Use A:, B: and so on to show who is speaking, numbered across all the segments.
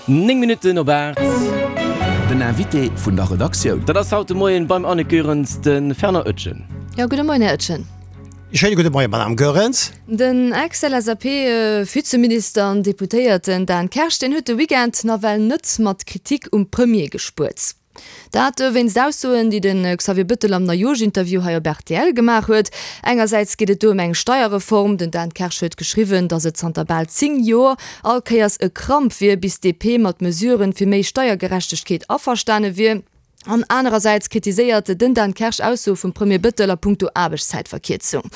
A: 9 Minutten op 8.
B: Den Invité vun der Redaktioun.
A: Dat ass haut de Moien beim Anne Goerens de Fernand Oetjen.
C: Jo, gudde Moien, Här Oetjen.
D: Schéine gudde Moien, Madame Goerens.
C: Den Ex-LSAP-Vizeminister an Deputéierten Dan Kersch, deen huet de Weekend nawell net mat Kritik um Premier gespuert. Dat wéinst Aussoen, déi de Xavier Bëttel am Neijooschinterview hei op rtl gemaach huet. Engersäits geet et do ëm eng Steierreform. Den Dan Kersch huet geschriwwen, datt et zanter bal 10 Joer all Kéiers e Kramp wier, bis d'DP mat Mesuren fir méi Steiergerechtegkeet averstane wier. An anerersäits kritiséiert den Dan Kersch Aussoe vum Premier Bëttel a punkto Aarbechtszäitverkierzung.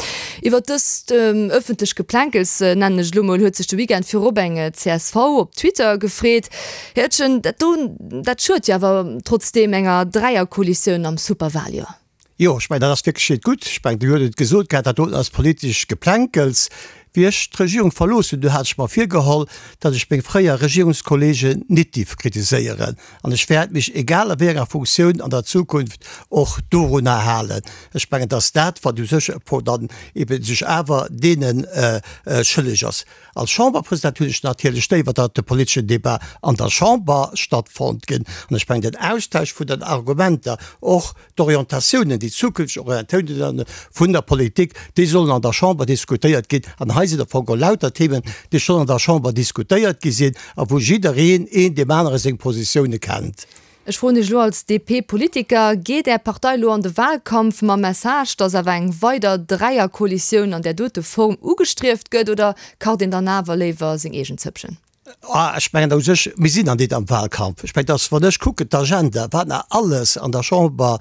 C: Iwwer dëst ëffentlech Geplänkels, nennen ech et elo mol, huet sech de Weekend virop eng csv op Twitter gefreet. Här Oetjen, dat do, dat schued jo awer trotzdeem enger Dräierkoalitioun am Superwaljoer.
D: Jo, ech mengen, dat ass wierklech net gutt. Ech mengen, Dir hutt et gesot gehat, dat doten ass politesch Geplänkels. Wéi ech d'Regierung verlooss hunn, du hat ech mer virgeholl, datt ech meng fréier Regierungskollegen nit dierf kritiséieren. An ech wäert mech, egal a wéi enger Funktioun an der Zukunft, och dorunner halen. Ech mengen, datt dat, wat u sech dann eben sech awer deene schëlleg ass. Als Chamberpresident hunn ech natierlech léiwer, datt de politeschen Débat an der Chamber stattfonnt ginn. An ech mengen, den Austausch vun den Argumenter, och d'Orientatiounen, déi zukünfteg Orientatiounen vun der Politik, déi sollen an der Chamber diskutéiert ginn. An hei sinn am Fong geholl lauter Themen, déi schonn an der Chamber diskutéiert gi sinn a wou jiddereen een deem anere seng Positioune kennt.
C: Ech froen Iech elo als DP-Politiker, Geet Är Partei elo an de Wahlkampf mam Message, datt awer eng weider Dräierkoalitioun an där dote Form ugestrieft gëtt, oder kacht een dann awer léiwer seng eegen Zëppchen?
D: Ah, ech mengen u sech, mir sinn an deet am Wahlkampf. Ech mengen, datt, wann ech kucken d'Agenda, wat nach alles an der Chamber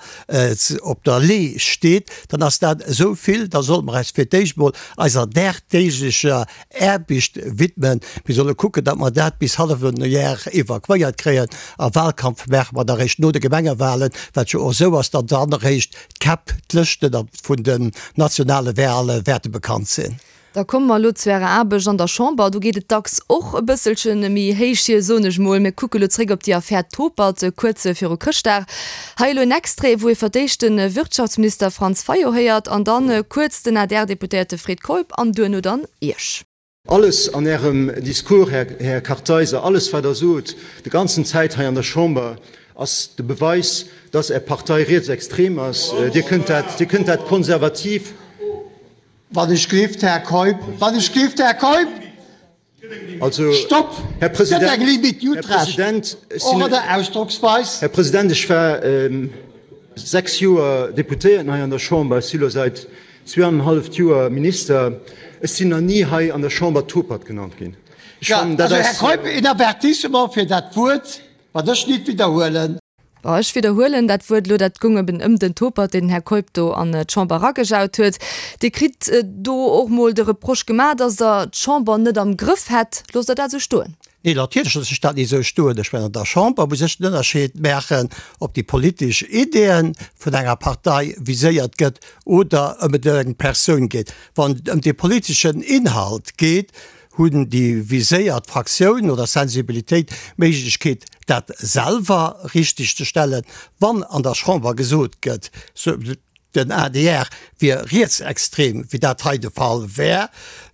D: op der Lee steet, dann ass dat esou vill, da sollte mer eis fir d'éischt emol eiser dagdeeglecher Aarbecht widmen. Mir solle kucken, datt mer dat bis hallef Jar evakuéiert kréien. A Wahlkampf maache mer da réischt no de Gemengewahlen, wat jo och esou ass, datt dann eréischt d'Käpp, d'Lëschten vun den nationale Wahle wäerte bekannt sinn.
C: Da komme mer elo zu Ärer Aarbecht an der Chamber. Do geet et dacks och e bësselche méi héich hier, soen ech mol. Mir kucke lo zréck op déi Affär Topert kuerz viru Chrëschtdag. Hei elo en Extrait, wou ee fir d'éischt de Wirtschaftsminister Franz Fayot héiert an dann kuerz den ADR-Deputéierte Fred Keup an duerno dann Iech.
E: Alles an Ärem Discours, Här Kartheiser, alles wat Der sot, de ganzen Zäit hei an der Chamber, ass de Beweis, dass Är Partei rietsextrem ass. Dir kënnt dat, Dir kënnt dat konservativ.
D: Wann ech gleeft, Här Keup, wann ech gleeft, Här Keup!
E: Also,
D: Stopp!
E: Här
D: Et gëtt eng
E: President,
D: Limite, Dir
E: Här
D: hutt Recht,
E: President, ech
D: och
E: sinn,
D: an der Ausdrocksweis.
E: Här President, ech war 6 Joer Deputéierten hei an der Chamber, ech si lo säit zweeanenhalleft Joer Minister. Ech sinn nach ni hei an der Chamber Topert genannt ginn. Ech
D: Ja,
E: fannen, dat
D: also, Här
E: ass.
D: Keup, een Avertissement fir dat Wuert, wat ech nit widderhuelen.
C: Bon, ech widderhuelen dat Wuert elo, dat gung eben ëm den Topert, deen den Här Keup do an d'Chamber eragejaut huet. Dir kritt do och mol de Reproche gemaach, datt Der d'Chamber net am Grëff hätt. Loosst Der dat esou stoen?
D: Nee, natierlech loosse ech dat net esou stoen. Ech mengen, an der Chamber muss ech den Ënnerscheed maachen, ob déi politesch Ideeën vun enger Partei viséiert gëtt oder ëm et ëm eng Persoun geet. Wann et ëm de politeschen Inhalt geet, Hunn déi viséiert Fraktioun oder Sensibilitéit d'Méiglechkeet, dat selwer richteg ze stellen, wann an der Chamber gesot gëtt, den adr wier rietsextrem, wéi dat hei de Fall wär,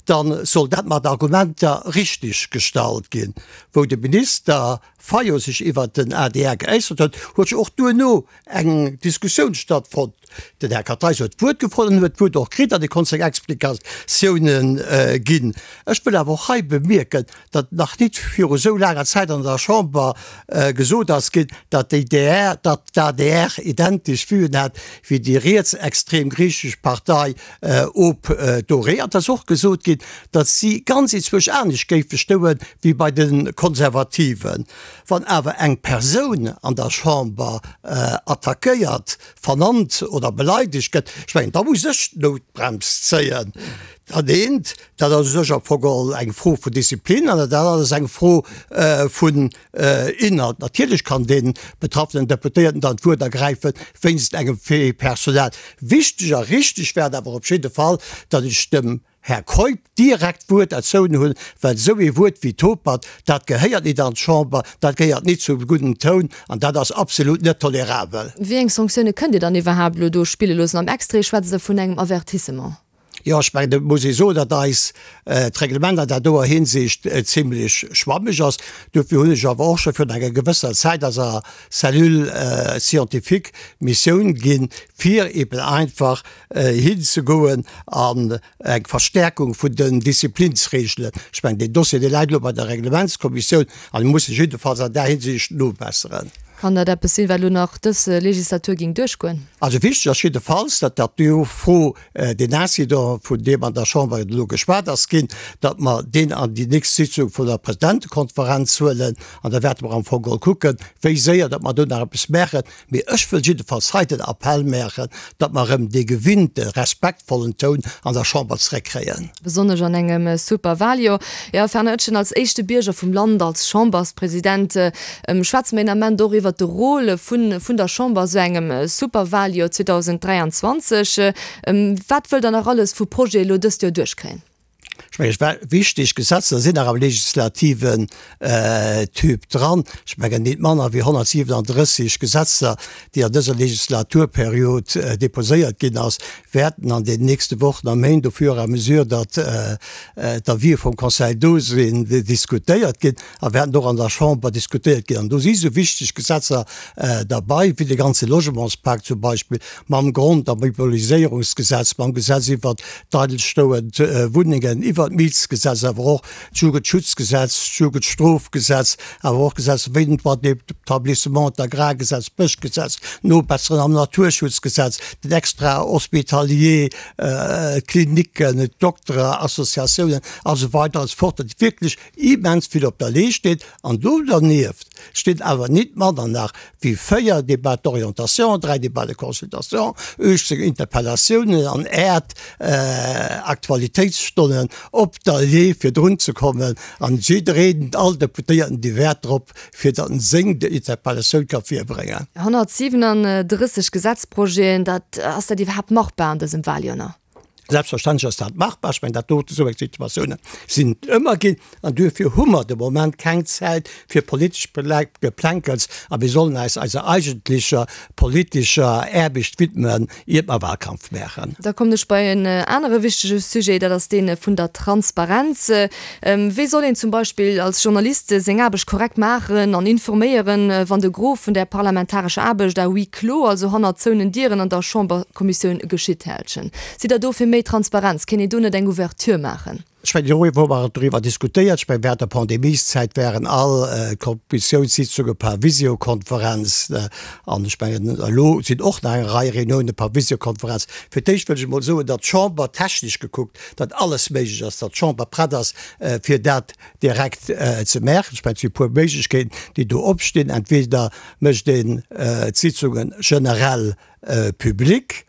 D: da soll dat mat Argumenter richteg gestallt ginn. Wou de Minister Fayot sech iwwert den adr geäussert huet, huet jo och duerno eng Diskussioun stattfonnt. Den Här Kartheiser huet d'Wuert gefrot an huet d'Wuert och kritt an e konnt seng Explikatiounen ginn. Ech wëll awer och hei bemierken, datt nach nit viru esou laanger Zäit an der Chamber gesot ass ginn, datt déi DR, datt d'ADR identesch Vuen hat wéi déi rietsextrem griichesch Partei op Doré. An et ass och gesot ginn, datt si ganz enzwousch anescht géife stoe wéi bei de Konservativen. Wann awer eng Persoun an der Chamber attackéiert, vernannt oder beleidegt gëtt, ech mengen, da muss ech d'Noutbrems zéien. Dat eent, dat ass u sech am Fong geholl eng Fro vun Disziplin an dat anert ass eng Fro vun Inhalt. Natierlech kann dee betraffenen Deputéierten dann d'Wuert ergräifen wéinst engem Fait personnel. Wichteg a richteg wär et awer op jidde Fall, datt ech dem Här Keup direkt d'Wuert erzoun hunn, well esou ee Wuert wéi Topert, dat gehéiert nit an d'Chamber, dat gehéiert nit zum gudden Toun an dat ass absolut net tolerabel.
C: Wéi eng Sanktioune kënnt Dir dann iwwerhaapt elo do spille loossen? Am Extrait schwätzt Der vun engem Avertissement.
D: Jo, ech mengen, do muss ee soen, datt eis d'Reglement an där doer Hinsicht zimlech schwammeg ass. Dofir hunn ech awer och scho virun enger gewësser Zäit eiser Cellule scientifique d'Missioun ginn, fir eben einfach hinzegoen an eng Verstärkung vun den Disziplinsregelen. Ech mengen, deen Dossier, dee läit elo bei der Reglementskommissioun an déi muss sech jiddefalls an där Hinsicht nobesseren.
C: Kann dat eppes sinn, wat elo nach dës Legislatur géing duerchgoen?
D: Also wichteg ass jiddefalls, datt dat do Fro, deen Incident, vun deem an der Chamber elo geschwat ass ginn, datt mer deen an déi nächst Sitzung vun der Presidentekonferenz huelen an da wäerte mer am Fong geholl kucken, wéi séier datt mer do nach eppes maachen. Mee ech wëll jiddefalls hei den Appell maachen, datt mer erëm dee gewinnte respektvollen Toun an der Chamber zréckkréien.
C: Besonnesch an engem Superwahljoer. Jo, Fernand Etgen, als éischte Bierger vum Land, als Chamberspresident, schwätze mer een Ament och iwwert de Rôle vun der Chamber a sou engem Superwahljoer 2023. Wat wëllt Der nach alles vu Projete elo dëst Joer duerchkréien?
D: Ech mengen, et wichteg Gesetzer sinn nach am legislativen Typ dran. Ech mengen, nit manner wéi 137 Gesetzer, déi an dëser Legislaturperiod déposéiert ginn ass, wäerten an den nächste Wochen a Méint, au fur et à mesure datt d'Avisë vum Conseil do sinn, diskutéiert ginn a wäerten och an der Chamber diskutéiert ginn. An do si sou wichteg Gesetzer derbei wéi de ganze Logementspak zum Beispill, mam Grond a Mobiliséierungsgesetz, mam Gesetz iwwert d'eidelstoend Wunnengen, iwwert d'Mietsgesetz, awer och d'Jugendschutzgesetz, d'Jugendstrofgesetz, awer och Gesetzer wéi den Droit d'établissement, d'Agrargesetz, d'Bëschgesetz, d'Nobesseren am Naturschutzgesetz, den Extra-hospitalier, d'Klinicken, d'Dokterassociatiounen a sou weider a sou fort, datt wierklech immens vill op der Lee steet. An do dernieft stinn awer nit manner nach wéi 4 Débats d'orientation, 3 Débats de consultation, 18 Interpellatiounen an äert Aktualitéitsstonnen op der Lee fir drun ze kommen. An jiddereen, all Deputéierten, dee wäert drop, fir datt en seng Interpellatioun ka virbréngen.
C: 137 Gesetzprojeten, dat, ass dat iwwerhaapt machbar an dësem Wahljoer?
D: Selbstverständlech ass dat machbar. Ech mengen, dat dote, esou eng Situatiounen sinn et ëmmer ginn. An duerfir hu mer de Moment keng Zäit fir politesch Geplänkels a mir sollen eis eiser eigentlecher politescher Aarbecht widmen, iert mer Wahlkampf maachen.
C: Da kommen ech bei en anere wichtege Sujet, dat ass dee vun der Transparenz. Wéi soll een zum Beispill als Journalist seng Aarbecht korrekt maachen an informéieren, wann de Gros vun der parlamentarescher Aarbecht à huis clos, also hannert zouenen Dieren an der Chamberkommissioun geschitt? Här Etgen, sidd Der do fir méi Transparenz? Kéint een do net eng Ouverture maachen?
D: Ech mengen, do hu mer doriwwer diskutéiert. Ech mengen, während der Pandemieszäit waren all Kommissiounssitzunge per Visiokonferenz. An ech mengen, elo sinn och nach eng Rei Reunioune per Visiokonferenz. Fir d'éischt wëll ech emol soen, datt d'Chamber technesch gekuckt, datt alles méiglech ass, datt d'Chamber prett ass, fir dat direkt ze maachen. Ech mengen, et si e puer Méiglechkeeten, déi do opstinn. Entweder mécht een d'Sitzunge generell public,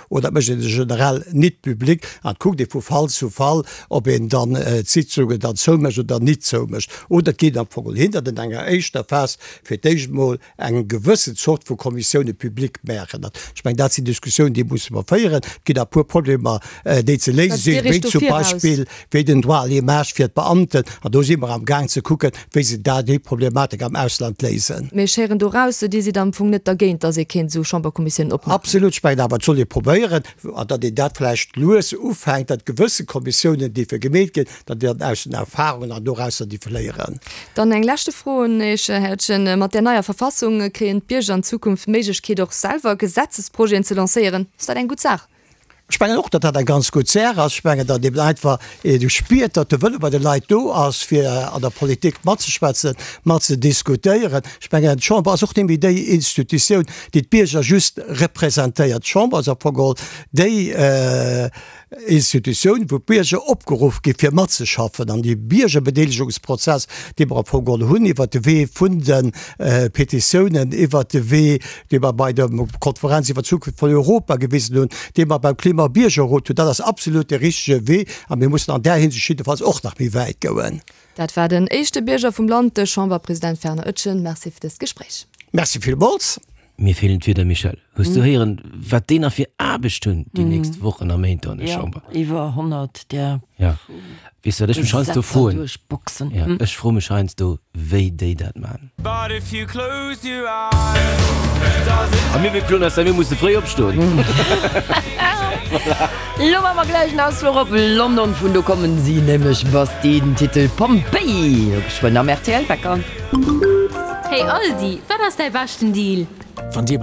D: oder et mécht een se generell nit public an et kuckt ee vu Fall zu Fall, ob een dann d'Sitzungen dann zoumécht oder nit zoumécht. Oder et geet am Fong hin, datt een an enger éischter Phas fir d'éischt emol eng gewëssen Zort vu Kommissioune public maachen. Ech mengen, dat sinn Diskussiounen, déi musse mer féieren. Et ginn nach e puer Problemer, déi ze léise sinn, wéi zum Beispill wéi den Droit à l'image fir d'Beamten. An do si mer am Gaang ze kucken, wéi se da déi Problematik am Ausland léisen.
C: Mee ech héieren do raus, Dir sidd am Fong net dergéint, datt ee kéint esou Chamberkommissiounen opmaachen.
D: Absolut. Ech mengen awer, et soll ee probéieren, an datt een dat vläicht lues ufänkt, datt gewësse Kommissiounen déi fir gemeet ginn, datt een dann aus den Erfahrungen an dorausser déi léieren.
C: Dann eng leschte Fro un Iech, Här Etgen. Mat där neier Verfassung kréien d'Bierger an Zukunft d'Méiglechkeet, och selwer Gesetzesprojeten ze lancéieren. Ass dat eng gutt Saach?
D: Ech mengen och, datt dat eng ganz gutt Saach ass. Ech mengen, datt eben einfach een spiert, datt de Wëlle bei de Leit do ass, fir an der Politik matzeschwätzen, matzediskutéieren. Ech mengen, d'Chamber ass och net méi déi Institutioun, déi d'Bierger just representéiert. D'Chamber ass am Fong geholl déi Institutioun, wou d'Bierger opgeruff gi fir matzeschaffen. An dee Biergerbedeelegungsprozess, dee mer am Fong geholl hunn iwwert de Wee vun de Petitiounen, iwwert de Wee, dee mer bei der Konferenz iwwer d'Zukunft vun Europa gewisen hunn, dee mer beim Klimabiergerrot hunn, dat ass absolut de richtege Wee a mir mussen an där Hinsicht jiddefalls och nach méi wäit goen.
C: Dat war den éischte Bierger vum Land, de Chamberpresident Fernand Etgen. Merci fir dëst Gespréich.
D: Merci villmools.
A: Mir feelen d'Wierder, Michèle. Hues du héieren, wat déi nach fir Aarbecht hunn déi nächst Wochen a Méint do an der Chamber?
F: Jo, iwwer 100 där.
A: Ja. Weess du wat ech mech heiansdo
F: Gesetzer
A: froen?
F: duerchboxen.
A: Ja, ech froe mech heiansdo, wéi déi dat man. A mir bekloen eis da, mir musse fréi opstoen.
F: Lo maache mer gläich en Ausfluch op London, vun do kommen si nämlech, Bastille, den Titel Pompeii, lo geschwënn am RTL Wecker.
G: Hey Aldi, wat ass däi beschten Deal?
B: Wann dir.